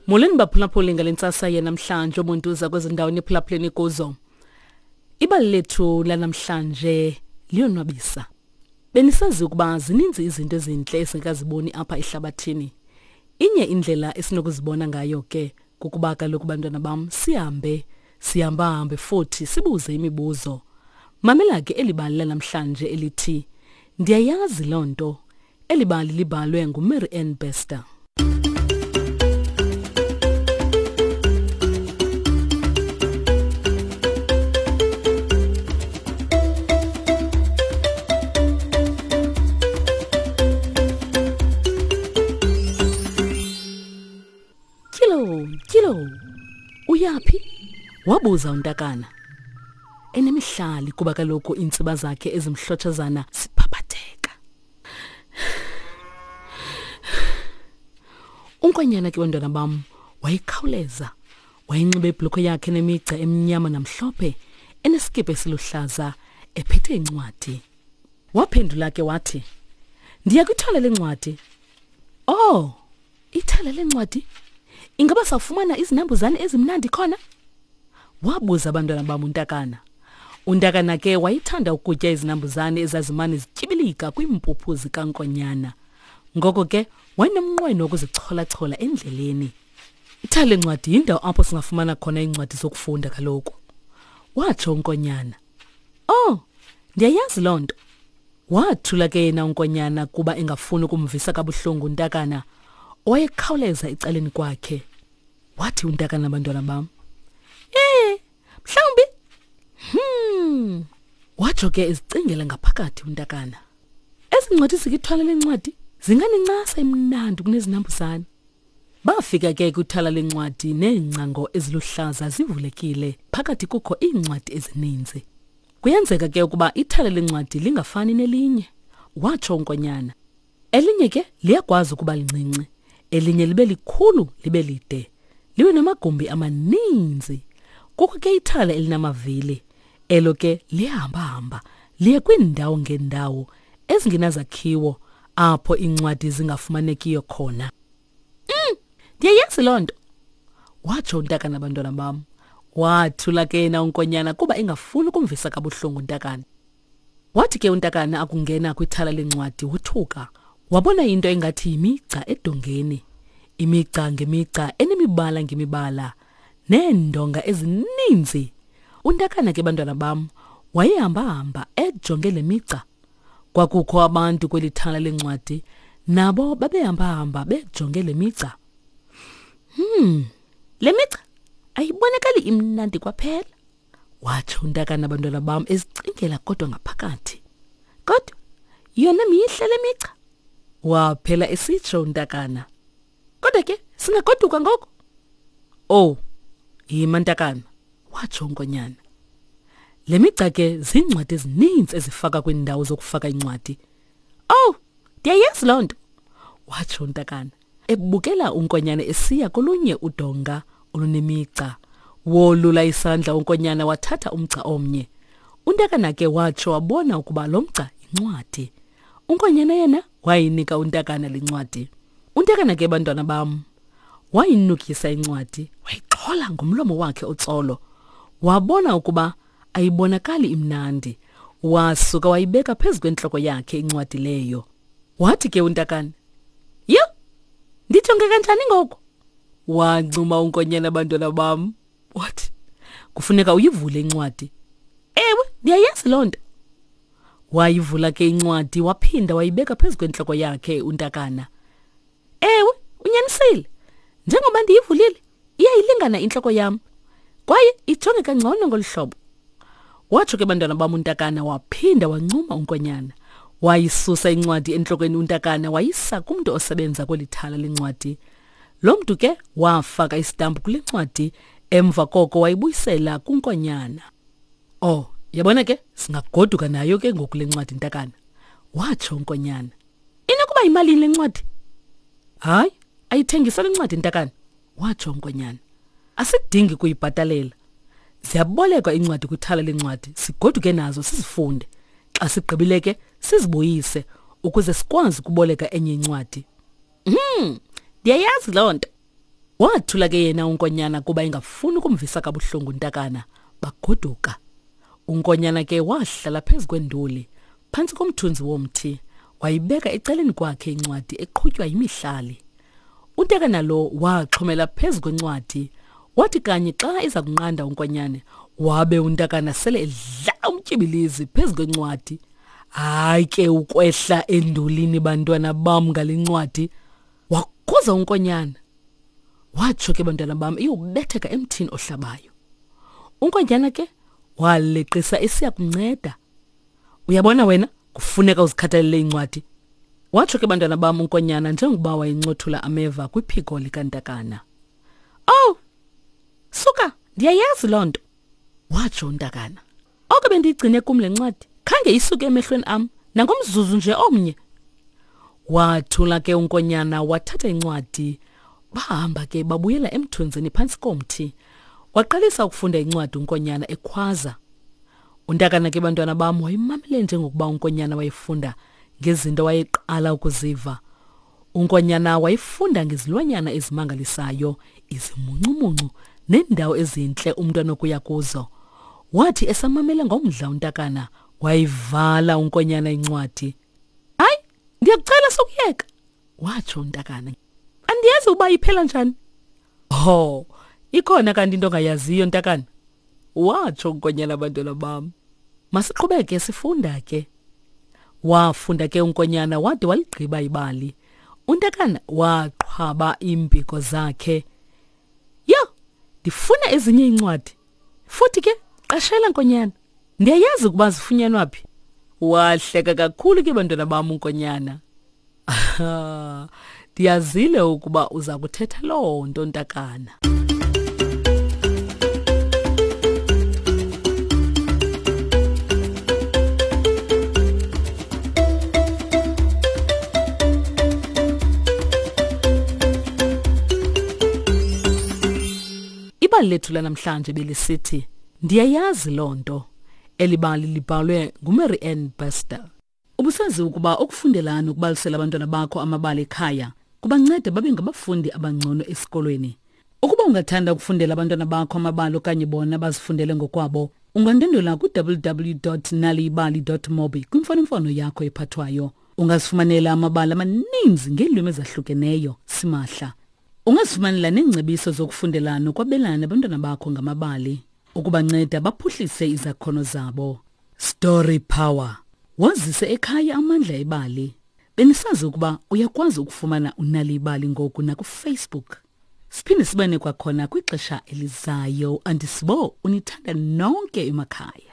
Molweni baphulaphuli ngale ntsasa yanamhlanje ubuntu uza kwezi ndawo niphulaphuleni kuzo. Ibali lethu lanamhlanje liyonwabisa. Benisazi ukuba zininzi izinto ezintle esingekaziboni apha ehlabathini. Inye indlela esinokuzibona ngayo ke kukuba kaloku bantwana bam sihambe sihambahambe futhi sibuze imibuzo. Mamela ke eli bali lanamhlanje elithi Ndiyayazi loo nto. Eli bali libhalwe nguMary Ann Bester. Tyilo, tyilo. Uyaphi? Wabuza untakana. Enemihlali kuba kaloku iintsiba zakhe ezimhlotshazana ziphaphatheka. Unkonyana ke bantwana bam wayekhawuleza. Wayenxibe ibhulukhwe yakhe nemigca emnyama namhlophe, enesikipa esiluhlaza, ephethe incwadi. Waphendula ke wathi, Ndiya kwithala lencwadi. Oh, ithala lencwadi? Ingaba sawufumana izinambuzane ezimnandi khona? Wabuza abantwana bam untakana. Untakana ke wayethanda ukutya izinambuzane ezazimane zityibilika kwiimpuphu zikankonyana. Ngoko ke wayenomnqweno wokuzicholachola endleleni. Ithala lencwadi yindawo apho singafumana khona iincwadi zokufunda kaloku, watsho unkonyana. Oh, ndiyayazi loo nto. Wathula ke yena unkonyana kuba engafuni ukumvisa kabuhlungu untakana owayekhawuleza ecaleni kwakhe. Wathi untakana bantwana bam, Eh, mhlawumbi. Hmm. Watsho ke ezicingela ngaphakathi untakana. Ezi ncwadi zikithwala lencwadi zinganincasa imnandi kunezinambuzane. Bafika ke kwithala lencwadi neengcango eziluhlaza zivulekile, phakathi kukho iincwadi ezininzi. Kuyenzeka ke ukuba ithala lencwadi lingafani nelinye, watsho uNkonyana. Elinye ke liyakwazi ukuba lincinci, elinye libe likhulu libe lide, libe namagumbi amaninzi. Kukho ke ithala elinamavili, elo ke liyahambahamba liye kwiindawo ngeendawo ezingenazakhiwo apho iincwadi zingafumanekiyo khona. Mm, ndiyayazi loo nto, watsho untakana bantwana bam. Wathula ke yena unkonyana kuba engafuni ukumvisa kabuhlungu untakana. Wathi ke untakana akungena kwithala lencwadi wothuka, wabona into engathi yimigca edongeni. Imigca ngemigca enemibala ngemibala neendonga ezininzi. Untakana ke bantwana bam wayehamba-hamba ejonge le migca. Kwakukho abantu kweli thala lencwadi nabo babehamba-hamba bejonge le migca. Hmm, le migca ayibonakali imnandi kwaphela. Watsho untakana abantwana bam ezicingela kodwa ngaphakathi. Kodwa yona mihle le migca. Waphela esitsho untakana. Kodwa ke singagoduka ngoku. Oh, yima ntakana, watsho unkonyana. Le migca ke ziincwadi ezininzi ezifaka kwiindawo zokufaka iincwadi. Oh, ndiyayazi loo nto, watsho untakana, ebukela unkonyana esiya kolunye udonga olunemigca. Wolula isandla unkonyana wathatha umgca omnye. Untakana ke watsho wabona ukuba lo mgca yincwadi. Unkonyana yena wayinika untakana le ncwadi. Untakana ke bantwana bam wayinukisa incwadi wayixhola ngomlomo wakhe otsolo. Wabona ukuba ayibonakali imnandi. Wasuka wayibeka phezu kwentloko yakhe incwadi leyo. Wathi ke untakana, Yho, ndijonge kanjani ngoku? Wancuma unkonyana bantwana bam. Wathi, kufuneka uyivule incwadi. Ewe, ndiyayazi loo nto. Wayivula ke incwadi waphinda wayibeka phezu kwentloko yakhe untakana. Ewe, unyanisile. Njengoba ndiyivulile, iyayilingana intloko yam. Kwaye ijonge kangcono ngolu hlobo. Watsho ke bantwana bam untakana waphinda wancuma unkonyana. Wayisusa incwadi entlokweni untakana wayisa kumntu osebenza kweli thala lencwadi. Lo mntu ke wafaka isitampu kule ncwadi emva koko wayibuyisela kunkonyana. Oh, yabona ke singagoduka nayo ke ngoku le ncwadi ntakana. Watsho unkonyana. Inokuba yimalini le ncwadi? Hayi, ayithengiswa le ncwadi ntakana, watsho unkonyana. Asidingi kuyibhatalela. Ziyabolekwa iincwadi kwithala leencwadi sigoduke nazo sizifunde. Xa sigqibile ke sizibuyise ukuze sikwazi ukuboleka enye incwadi. Hmm, ndiyayazi loo nto. Wathula ke yena uNkonyana kuba engafuni ukumvisa kabuhlungu uNtakana. Bagoduka. Unkonyana ke wahlala phezu kwenduli phantsi komthunzi womthi wayibeka ecaleni kwakhe incwadi eqhutywa yimihlali. Untakana lo waxhomela phezu kwencwadi wathi kanye xa iza kunqanda unkonyane wabe untakana sele edlala umtyibilizi phezu kwencwadi. Hayi ke ukwehla endulini bantwana bam ngale ncwadi wakhuza unkonyana. Watsho ke bantwana bam iyobetheka emthini ohlabayo. Unkonjana ke waleqisa esiya kunceda. Uyabona wena kufuneka uzikhathalele incwadi. Watsho ke bantwana bam unkonyana njengokuba wayencothula ameva kwiphiko likantakana. Oh! Suka, ndiyayazi loo nto. Watsho untakana. Oko bendiyigcine kum le ncwadi khange isuke emehlweni am nangomzuzu nje omnye. Wathula ke unkonyana wathatha incwadi bahamba ke babuyela emthunzini phantsi komthi. Waqalisa ukufunda incwadi unkonyana ekhwaza. Untakana ke bantwana bam wayemamele njengokuba unkonyana wayefunda ngezinto wayeqala ukuziva. Unkonyana wayefunda ngezilwanyana ezimangalisayo, izimuncumuncu neendawo ezintle umntu anokuya kuzo. Wathi esamamele ngomdla untakana, wayivala unkonyana incwadi. Hayi, ndiyakucela sokuyeka, watsho untakana. Andiyazi uba iphela njani. Ho, ikhona kanti into ongayaziyo ntakana, watsho unkonyana abantwana bam. Masiqhubeke sifunda ke. Wafunda ke unkonyana wade waligqiba ibali. Untakana waqhwaba iimpiko zakhe. Yho, ndifuna ezinye iincwadi. Futhi ke qashela nkonyana. Ndiyayazi ukuba zifunyanwa phi. Wahleka kakhulu ke bantwana bam unkonyana. Ndiyazile ukuba uza kuthetha loo nto ntakana. Ibali lethu lanamhlanje belisithi Ndiyayazi loo nto. Eli bali libhalwe nguMary Ann Bester. Ubusazi ukuba ukufundela nokubalisela abantwana bakho amabali ekhaya kubanceda babe ngabafundi abangcono esikolweni. Ukuba ungathanda ukufundela abantwana bakho amabali okanye bona bazifundele ngokwabo, ungandwendwela ku-www.naliyibali.mobi kwimfonomfono yakho ephathwayo. Ungazifumanela amabali amaninzi ngeelwimi ezahlukeneyo simahla. Ungazifumanela neengcebiso zokufundela nokwabelana nabantwana bakho ngamabali ukubanceda baphuhlise izakhono zabo. Story Power. Wazise ekhaya amandla ebali. Benisazi ukuba uyakwazi ukufumana unali ibali ngoku nakuFacebook. Siphinde sibane kwakhona kwixesha elizayo. Andisibo unithanda nonke emakhaya.